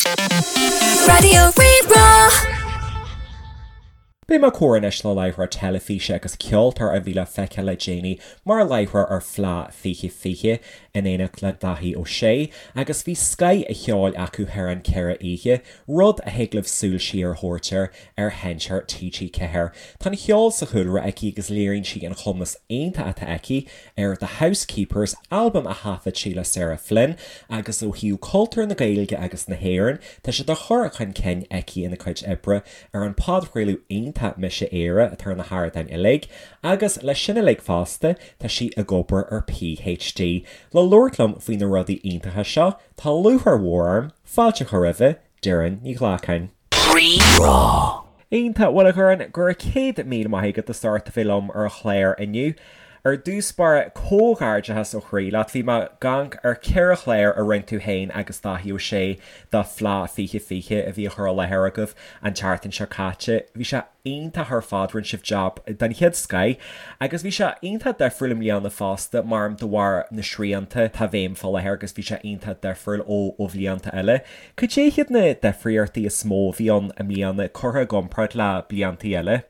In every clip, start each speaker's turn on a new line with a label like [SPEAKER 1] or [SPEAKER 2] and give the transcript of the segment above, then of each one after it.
[SPEAKER 1] Raidió Rí-Rá.
[SPEAKER 2] Beidh mé ag comhrá anois le láithreoir teilifíse agus ceoltóir a bhí le feiceáil le déanaí mar láithreoir ar Fleadh 2020 in éineacht le Daithí Ó Sé agus bhí scoth an cheoil acu thar an 4 oíche, rud a thig libh súil siar a thabhairt air ar sheinnteoir TG4. Tá an cheol sa chúlra aici agus léiríonn sí an cumas iontach atá aici ar The Housekeepers, albam a thaifead sí le Sarah Flynn, agus ó thaobh cultúr na Gaeilge agus na hÉireann, tá sé á chur chun cinn aici ina cuid oibre ar an podchraoladh iontach Mise Éire atá ar na hardáin uilig, agus leis sin uilig fosta, tá sí ag obair ar PhD. Le labhairt liom faoi na rudaí iontacha seo, tá lúcháir mhór orm fáilte a chur roimhe, Doireann Ní Ghlacáin.
[SPEAKER 1] Rí-Rá.
[SPEAKER 2] Iontach, bhuel a Dhoireann, go raibh 100,000 maith agat as ucht a bheith liom ar an chlár inniu. Ar dtús báire, comhghairdeachas ó chroí leat. Bhí mé ag amharc ar 4 chlár a rinne tú féin agus Daithí Ó Sé do Fleadh 2020 a bhí á chur i láthair agaibh an tseachtain seo caite. Bhí sé iontach ar fad, rinne sibh jab den chéad scoith agus bhí sé iontach difriúil i mbliana fosta, maram de bharr na srianta atá i bhfeidhm fá láthair agus bhí sé iontach difriúil ó ó bhlianta eile. Cad é hiad na difríochtaí is mó a bhí ann i mbliana curtha i gcomparáid le bliantaí eile?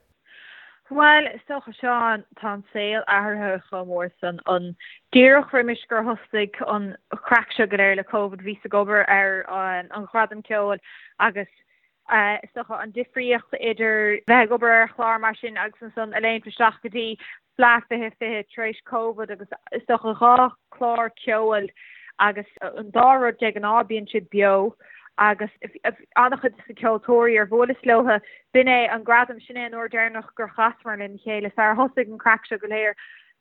[SPEAKER 3] Bhuel, is dócha, Seán, tá an saol athraithe chomh mór san. An díreach roimis gur thosaigh an chraic seo go léir le Covid, bhíos ag obair ar an Ghradam Ceoil agus is dócha an difríocht idir bheith ag obair ar chlár mar sin agus ansan a léimt isteach go dtí Fleadh 2020 tar éis Covid agus is dócha 2 chlár ceoil agus an dá rud de ghnáth bíonn siad beo agus an-chuid de na ceoltóirí ar bhuaileas leo b'in é an gradam sin é an uair deireanach gur chasamar lena chéile sar thosaigh an craic seo go léir.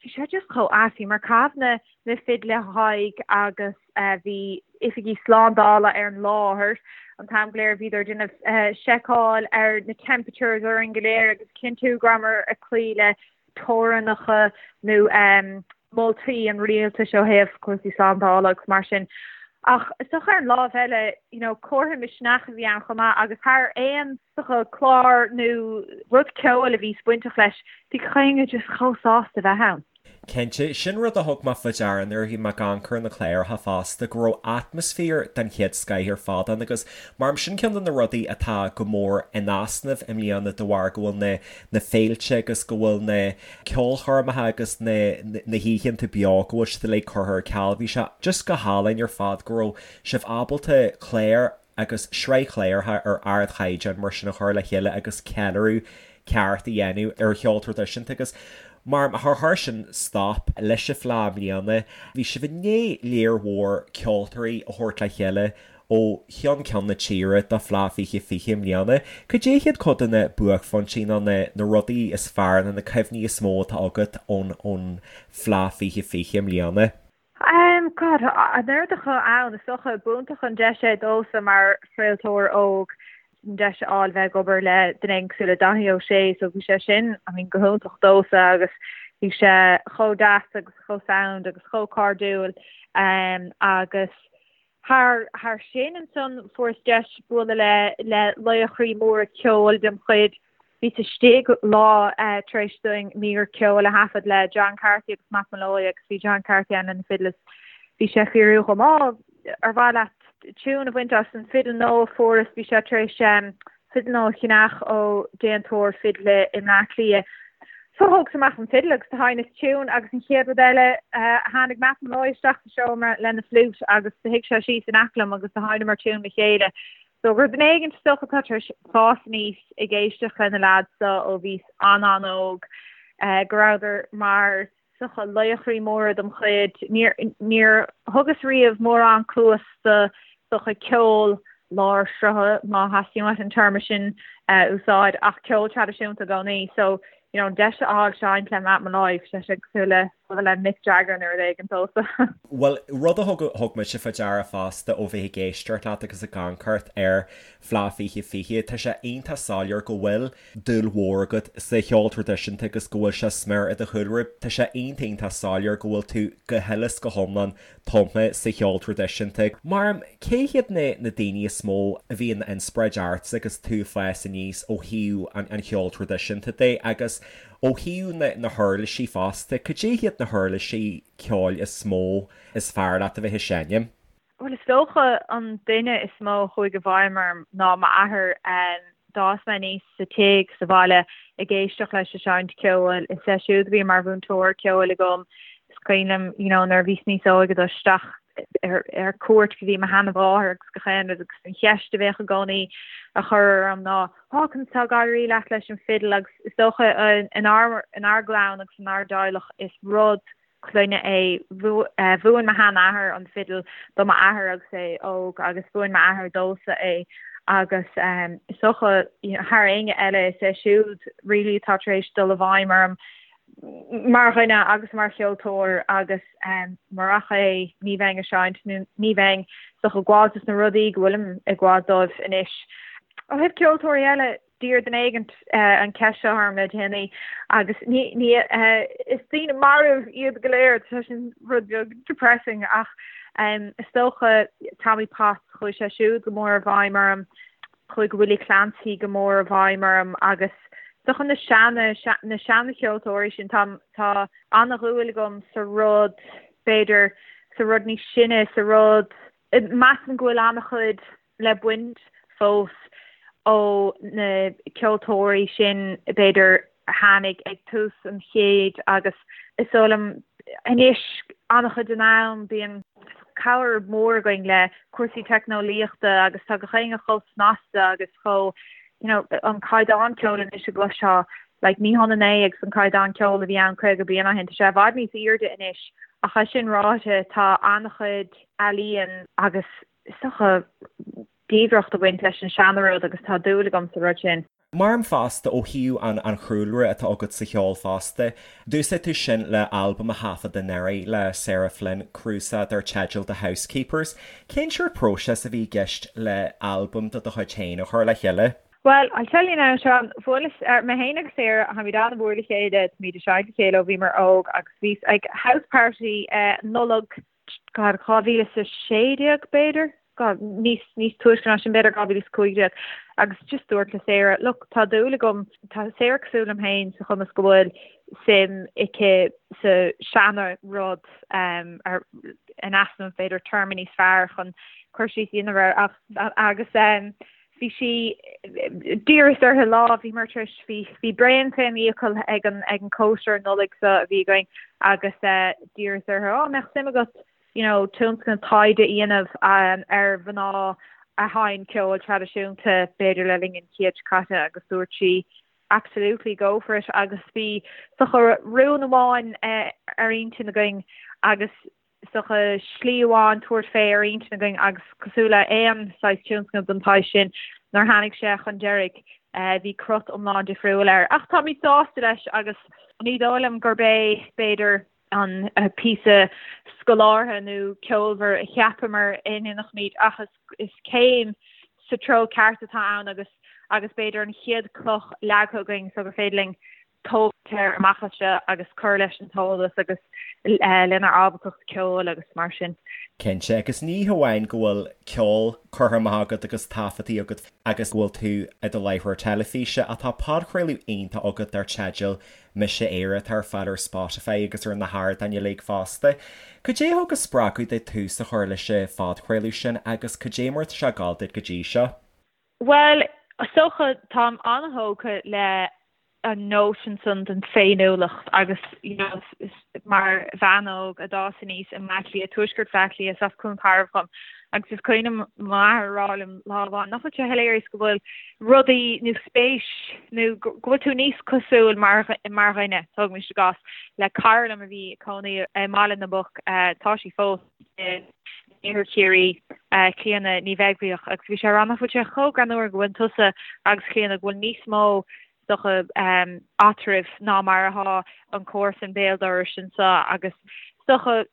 [SPEAKER 3] Bhí sé just chomh ait, bhíomar ag caitheamh na na fidle haghaidh agus bhí oifigigh slándála ar an láthair an t-am go léir, bhíodar ag déanamh seiceáil ar na temperatures orainn go léir agus cinntiú go rabhamar ag cloí le teorainneacha nó moltaí an rialtais ó thaobh cúrsaí slándála agus mar sin. Ach is dócha ar an lámh eile, you know, comhartha misneach a bhí ann chomh maith agus thar aon dócha clár nó rud ceoil a bhí bainteach leis, bhí gach éinne just chomh sásta bheith ann.
[SPEAKER 2] Cinnte, sin rud a thug mé faoi deara nuair a bhí mé ag amharc ar na cláracha fosta, go raibh atmaisféar den chéad scoith ar fad ann agus maram sin ceann de na rudaí atá go mór in easnamh i mbliana de bharr go bhfuil na na féilte agus go bhfuil na ceolchoirmeacha agus na na hoícheanta beo go bhfuil siad uilig curtha ar ceal. Bhí sé just go hálainn ar fad go raibh sibh ábalta clár agus sraith chláracha ar ardchaighdeán mar sin a chur le chéile agus ceiliúradh ceart a dhéanamh ar cheol traidisiúnta agus mar char chuir sin stop leis an Fleadh i mbliana. Bhí sibh i ndiaidh léar mhór ceoltóirí a thabhairt le chéile ó cheann ceann na tíre do Fleadh 2020 i mbliana. Cad é hiad cuid de na buaicphointí nó na na rudaí is fearr nó na cuimhní is mó atá agat ón ón Fleadh 2020 i mbliana?
[SPEAKER 3] God, an oiread acu ann, is dócha, b'iontach an deis é domhsa mar chraoltóir óg an deis a fháil bheith ag obair le duine éigin cosúil le Daithí Ó Sé, so bhí sé sin, I mean, go hiontach domhsa agus bhí sé chomh deas agus chomh sound agus chomh cairdiúil agus Thar thar sin ansan fuaireas deis bualadh le le laochraí móra ceoil dem chuid. Bhíos istigh lá tar éis dúinn mír ceoil a thaifead le John Carthy agus Matt Molloy agus bhí John Carthy ann lena fidil is bhí sé ag fiafraí dhom, Á, ar mhaith leat tiún a bhaint as an fidil nua a fuaireas? Bhí sé tar éis fidil nua a cheannach ó déantóir fidle i mBleá Cliath. So thógas amach an fidil agus do sheinneas tiún agus an chéad rud eile tháinig Matt Molloy isteach sa seomra lena fliúit agus do shuigh sé síos in aice liom agus do sheinneamar tiún le chéile. So gur duine éigin is dócha atá tar éis fás aníos ag éisteacht le na leaids so ó bhíos an-an-óg go rabhadar mar is dócha laochraí móra dem chuid. Níor, níor thugas riamh mórán cluas do, is dócha, ceol lár srutha, má theastaíonn uait an téarma sin a úsáid, ach ceol traidisiúnta i gcónaí. So, you know, an deis a fháil seinnt le Matt Molloy, bhí sé cosúil le bualadh le Mick Jagger nó rud éigin domhsa.
[SPEAKER 2] Bhuel, rud a thug, thug mise faoi deara fosta ó bheith ag éisteacht leat agus ag amharc ar Fleadh 2020, tá sé iontach soiléir go bhfuil dúil mhór agat sa cheol traidisiúnta agus go bhfuil sé smior i do chúlra. Tá sé iontach iontach soiléir go bhfuil tú go huile is go hiomlán tumtha sa cheol traidisiúnta. Mar cé hiad na na daoine is mó a bhí ina inspioráid ortsa agus tú ag fás aníos ó thaobh an an cheoil traidisiúnta de agus ó thaobh na na huirlisí fosta, cad é hiad na huirlisí ceoil is mó is fearr leat a bheith ag seinm?
[SPEAKER 3] Bhuel, is dócha an duine is mó a chuaigh i bhfeidhm orm ná m'athair. D'fhás mé aníos sa tigh sa bhaile ag éisteacht leis ag seinnt ceoil. Is é siúd a bhí mar mhúinteoir ceoil agam. Is cuimhin liom, you know, nuair a bhíos níos óige dul isteach ar ar cuairt go dtí mo sheanmháthair agus gach aon rud agus an cheist a bheadh i gcónaí á chur orm ná, Á, conas tá ag éirí leat leis an bhfidil? Agus is dócha inár inár gclann agus inár dteaghlach is rud clainne é. Mhúin mo sheanathair an fidil do m'athair agus é óg agus mhúin m'athair domhsa é agus is dócha thar éinne eile is é siúd really atá tar éis dul i bhfeidhm orm mar dhuine agus mar cheoltóir agus murach é ní bheinn ag seinnt nó ní bheinn is dócha ag gabháil dos na rudaí go bhfuilim ag gabháil dóibh anois. Ó thaobh ceoltóirí eile, D'iarr duine éigint an cheist seo orm le déanaí agus ní, ní, is daoine marbh iad go léir, tá sin rud beag depressing ach is dócha Tommy Potts, chuaigh sé siúd go mór i bhfeidhm orm, chuaigh Willie Clancy go mór i bhfeidhm orm agus is dócha na seana, na seana-cheoltóirí sin, tá, tá an-dhúil agam sa rud, b'fhéidir, sa rud níos sine, sa rud, measaim go bhfuil an-chuid le baint fós ó na ceoltóirí sin, b'fhéidir, a tháinig ag tús an chéid agus is dóigh liom anois an-chuid den am bíonn cabhair mhór againn le cúrsaí teicneolaíochta agus tá gach éinne chomh snasta agus chomh, you know, an caighdeán ceoil anois a gcloisfeá, like ní hionann é agus an caighdeán ceoil a bhí ann 50 bliain ó shin, tá sé i bhfad níos airde anois ach é sin ráite tá an-chuid ealaíon agus is dócha, diamhaireacht ag baint leis an seana-rud agus tá dúil agam sa rud sin.
[SPEAKER 2] Maram fosta ó thaobh an an chúlra atá agat sa cheol fosta, d'úsáid tú sin le albam a thaifead anuraidh le Sarah Flynn, cnuasach dar teideal The Housekeepers. Cén seort próiseas a bhí i gceist le albam de do chuid féin a chur le chéile?
[SPEAKER 3] Well, I'll tell you now, Seán, bhuaileas, mé féin agus Sarah, táimid an-mhór le chéile, táimid ag seinnt le chéile ó bhíomar óg agus bhíos ag house party Nollag God, 2016 b'fhéidir? God, níos, níos túisce ná sin b'fhéidir, 2015. Agus just dúirt le Sarah, look, tá dúil agam, tá Sarah cosúil liom féin sa chuma is go bhfuil suim aici sa seana rud, um, ar, in easnamh b'fhéidir téarma níos fearr chun cur síos a dhéanamh air ach, agus, um, Bhí sí, d'iarras uirthi lá, bhíomar tar éis, bhí, bhí braon fén fhiacail ag an, ag an cóisir Nollag seo a bhí againn agus d'iarras uirthi, á, mbeadh suim agat, you know, tionscnamh taighde a dhéanamh ar mhná a sheinn ceol traidisiúnta, b'fhéidir le linn an chéid seo caite agus dúirt sí, absolutely go for it agus bhí is dócha rún amháin ar intinn againn agus is dócha, slí amháin tabhairt fé ar intinn againn agus cosúil le aon saghas tionscnamh den tsaghas sin, nuair a tháinig sé chun deiridh, bhí crot iomlán difriúil air. Ach táimid sásta leis agus ní dóigh liom gurb é, b'fhéidir, an píosa scolártha nó ceolmhar a cheapamar a ndéanfaimid ach is céim sa treo ceart atá ann agus agus b'fhéidir an chéad cloch leagtha againn so gur féidir linn tógaint air amach as seo agus cur leis an t-eolas agus lenár ábaltacht ceoil agus mar sin.
[SPEAKER 2] Cinnte, agus ní hamháin go bhfuil ceol curtha amach agat agus taifeadtaí agat agus go bhfuil tú i do láithreoir teilifíse ach tá podchraoladh iontach agat dar teideal Mise Éire atá ar fáil ar Spotify agus ar na hardáin uilig fosta. Cad é a thug an spreagadh duit tús a chur leis an phodchraoladh sin agus cad é mar atá sé ag gabháil duit go dtí seo?
[SPEAKER 3] Bhuel, is dócha, táim an-thógtha le an nóisean san den féiniúlacht agus, you know, mar bhean óg a d'fhás aníos i mBleá Cliath, tuaisceart Bhleá Cliath, is as Cluain Tairbh dhom, agus is cuimhin liom m'athair a rá liom lá amháin, nach bhfuil sé hilarious go bhfuil rudaí nó spéis nó go bhfuil tú níos cosúil mar mar dhuine, tógaimis i gcás, le cara liom a bhí ag cónaí i mBaile na bPoc, tá sí fós. in Iarthar Chiarraí, Clíona Ní Bheaglaoich, agus bhí sé ag rá nach bhfuil sé chomh greannmhar go bhfuil tusa agus Clíona, go bhfuil níos mó is dócha eatraibh ná mar atá an comharsan béal dorais anseo agus is dócha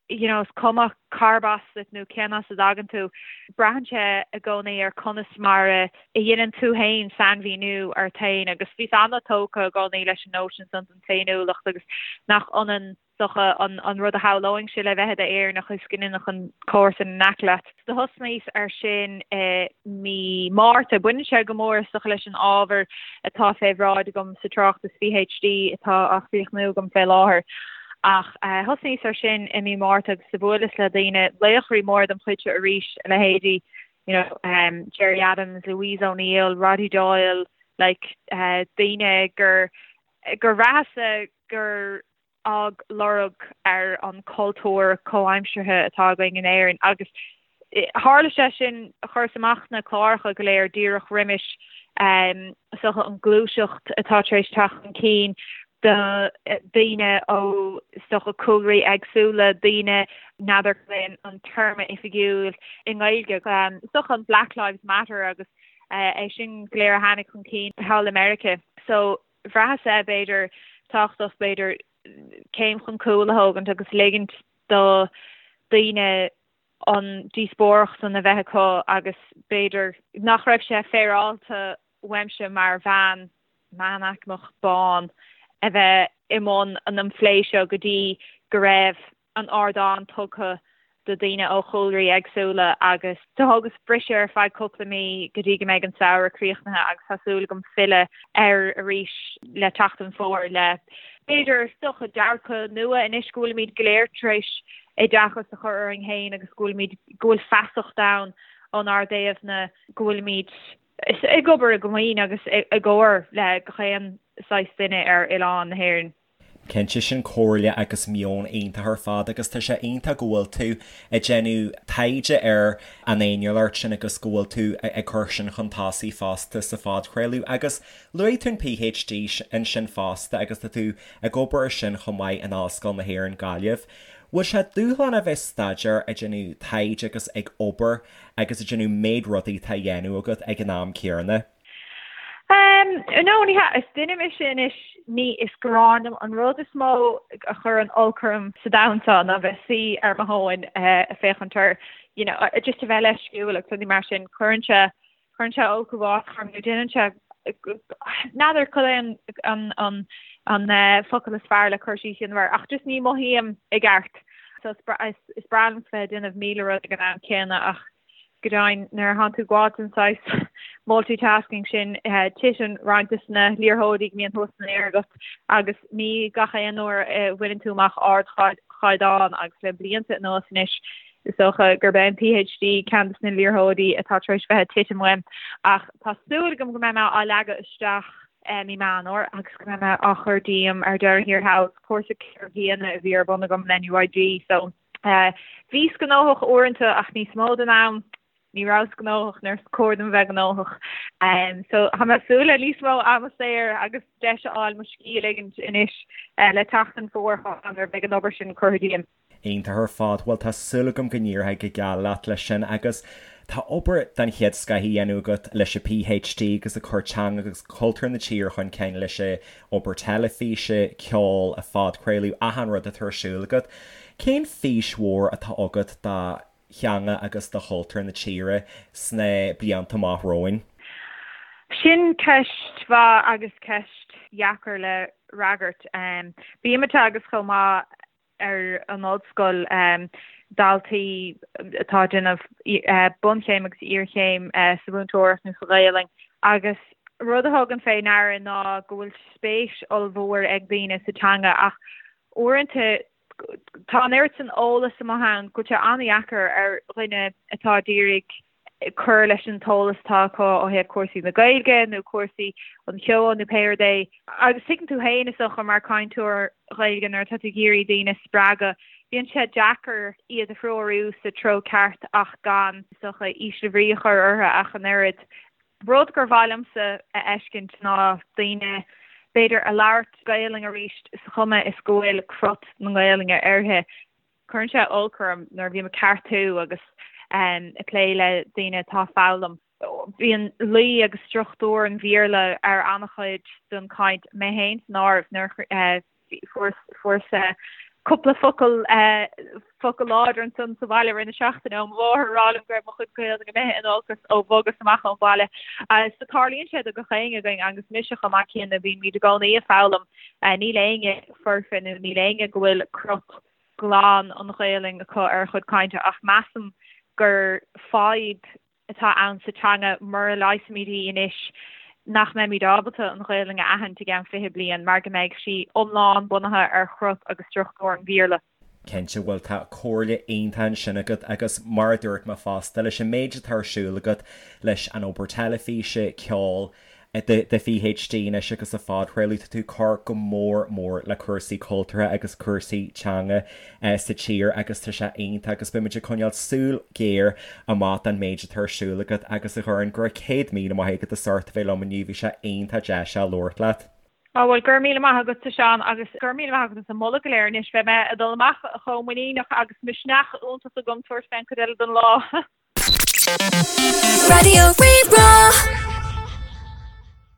[SPEAKER 3] you know is cuma cárb as duit nó cén as a dtagann tú, braitheann sé i gcónaí ar conas mar a dhéanann tú féin sainmhíniú ort féin agus bhíos an-tógtha i gcónaí leis an nóisean san den féiniúlacht agus nach ionann dócha an rud a shamhlóinnse le bheith i d'Éireannach is go ndéanfadh an comharsan in aice leat. Do thosnaíos ar sin i mí Márta. Baineann sé go mór is dócha leis an ábhar atá fé bhráid agam sa tráchtas PhD atá á chríochnú agam fé láthair. Ach thosnaíos ar sin i mí Márta agus do bhuaileas le daoine, laochraí móra dem chuidse arís, a leithéidí you know Gerry Adams, Louise O'Neill, Roddy Doyle, like daoine gur gur bhraitheas-sa gur fhág lorg ar an chultúr comhaimseartha atá againn in Éirinn agus tharla sé sin, chuireas amach na cláracha go léir díreach roimis is dócha an ghluaiseacht atá tar éis teacht chun cinn do daoine ó is dócha cúlraí éagsúla, daoine n'fheadar cad é an téarma oifigiúil i nGaeilge, is dócha an Black Lives Matter agus é sin go léir a tháinig chun cinn thall i Meiriceá. So bhraitheas-sa b'fhéidir tábhachtach b'fhéidir céim chun cúil a thógaint agus ligint do daoine an díospóireacht san a bheith acu agus b'fhéidir nach raibh sé féaráilte uaimse mar bhean meánaicmeach bán a bheith i mbun an phlé seo go dtí go raibh an ardán tugtha do daoine ó chúlraí éagsúla agus do thógas briseadh ar feadh cúpla mí go dtí go mbeidh an samhradh críochnaithe agus tá súil agam filleadh air arís le teacht an fhómhair le b'fhéidir is dócha dearcadh nua anois go bhfuilimid go léir tar éis oideachas a chur orainn féin agus go bhfuilimid go bhfuil feasacht ann ónár dtaobhna go bhfuilimid ag obair i gcomaoin agus i gcomhar le gach aon saghas duine ar oileán na hÉireann.
[SPEAKER 2] Cinnte, sin comhairle agus meon iontach ar fad agus tá sé iontach go bhfuil tú ag déanamh taighde ar an fhéiniúlacht sin agus go bhfuil tú ag cur sin chun tosaigh fosta sa phodchraoladh. Agus luaigh tú an PhD ansin fosta agus tá tú ag obair ar sin chomh maith in Ollscoil na hÉireann, Gaillimh. Bhfuil sé dúshlánach a bheith ag staidéar, ag déanamh taighde agus ag obair agus ag déanamh méid rudaí atá á dhéanamh agat ag an am céanna?
[SPEAKER 3] No, ní hea. Is duine mise anois, ní, is gráin liom. An rud is mó a chuireann olc orm sa domhan seo ná bheith suí ar mo thóin ag féachaint ar, you know, just a bheith leisciúil agus rudaí mar sin. Cuireann sé, cuireann sé olc uafásach orm nó déanann sé, n'fheadar cad é an, an, an, an focal is fearr le cur síos a dhéanamh air ach just ní mothaím i gceart. So is, is breá liom bheith ag déanamh 1000 rud ag an am céanna ach Go deimhin, nuair a thánn tú ag gabháil den saghas multitasking sin, titeann roinnt de na liathróidí go mbíonn thuas san aer agat agus ní gach aon uair a bhaineann tú amach ardchaighdeán agus le blianta anuas anois is dócha gurb é an PhD ceann de na liathróidí atá tar éis bheith ag titim uaim. Ach tá súil agam go mbeidh mé á leagadh isteach mí Meán Fhómhair agus go mbeidh mé á chur díom ar deireadh thiar thall. Cúrsa ceithre bliana a bhí ar bun agam le NUIG so. Bhíos gnóthach uaireanta ach níos mó den am ní rabhas gnóthach nuair is cóir dom bheith gnóthach. So tá mé ag súil le níos mó ama saor agus deis a fháil mo scíth a ligint anois le teacht an fhómhair nuair a bheidh an obair sin curtha díom.
[SPEAKER 2] Iontach ar fad. Bhuel tá súil agam go n-éireoidh go geal leat leis sin agus tá obair den chéad scoith á dhéanamh agat leis an PhD agus ag cur teanga agus cultúr na tíre chun cinn leis an obair teilifíse, ceol, an phodchraoladh, achan rud atá ar siúl agat. Cén fís mhór atá agat do theanga agus do chultúr na tíre sna blianta amach romhainn?
[SPEAKER 3] Sin ceist mhaith agus ceist dheacair le fhreagairt. Bím ag teagasc chomh maith ar an ollscoil daltaí atá ag déanamh bunchéim agus iarchéim sa mhúinteoireacht nó sa Ghaelainn agus rud a thugaim fé ndeara ná go bhfuil spéis ollmhór ag daoine sa teanga ach uaireanta tá an oiread san eolas amuigh ann go bhfuil sé an-dheacair ar dhuine atá ag iarraidh cur leis an t-eolas atá acu ó thaobh cúrsaí na Gaeilge nó cúrsaí an cheoil nó pé rud é. Agus tuigeann tú féin is dócha mar cainteoir Ghaeilge nuair atá tú ag iarraidh daoine a spreagadh, bíonn sé deacair iad a threorú sa treo ceart ach gan, is dócha, ísle bhrí a chur orthu ach an oiread. Rud gur mhaith liomsa a fheiscint ná daoine, b'fhéidir, a labhairt Gaelainn arís sa chuma is go bhfuil crot na Gaelainne uirthi. Cuireann sé olc orm nuair a bhím ag ceartú agus ag plé le daoine atá ag foghlaim. Bíonn luí agus struchtúr an Bhéarla ar an-chuid den chaint, mé féin san áireamh, nuair a fuaireas cúpla focal focal láidir ansan sa bhaile i rith na seachtaine ó mo mháthair ag rá liom go raibh mo chuid Gaeilge imithe in olcas ó bhogas amach ón bhaile. So tarlaíonn sé do gach éinne againn agus mise chomh maith céanna, bímid i gcónaí ag foghlaim. Níl éinne foirfe nó níl éinne go bhfuil crot glan an Ghaelainn acu ar a chuid cainte ach measaim gur fadhb atá ann sa teanga mura leigheasaimid í anois. nach mbeimid ábalta an Ghaelainn a aithint i gceann 20 bliain mar go mbeidh sí iomlán bunaithe ar chrut agus struchtúr an Bhéarla.
[SPEAKER 2] Cinnte, bhuel tá comhairle iontach ansin agat agus mar a dúirt mé fosta, leis an méid atá ar siúl agat leis an obair teilifíse, ceol, do PhD anois agus an phodchraoladh, tá tú ag cur go mór mór le cúrsaí cultúrtha agus cúrsaí teanga sa tír agus tá sé iontach agus beimid ag coinneáil súil ghéar amach don méid atá ar siúl agat agus a Dhoireann, go raibh 100,000 maith agat as ucht a bheith liom inniu, bhí sé iontach deas a labhairt leat.
[SPEAKER 3] Á bhuel, go raibh míle maith agatsa Seán agus go raibh míle maith agat as an moladh go léir anois. Beidh mé ag dul amach chomh muiníneach agus misneach iontach agam tabhairt fén chuid eile den lá.
[SPEAKER 1] Raidió Rí-Rá.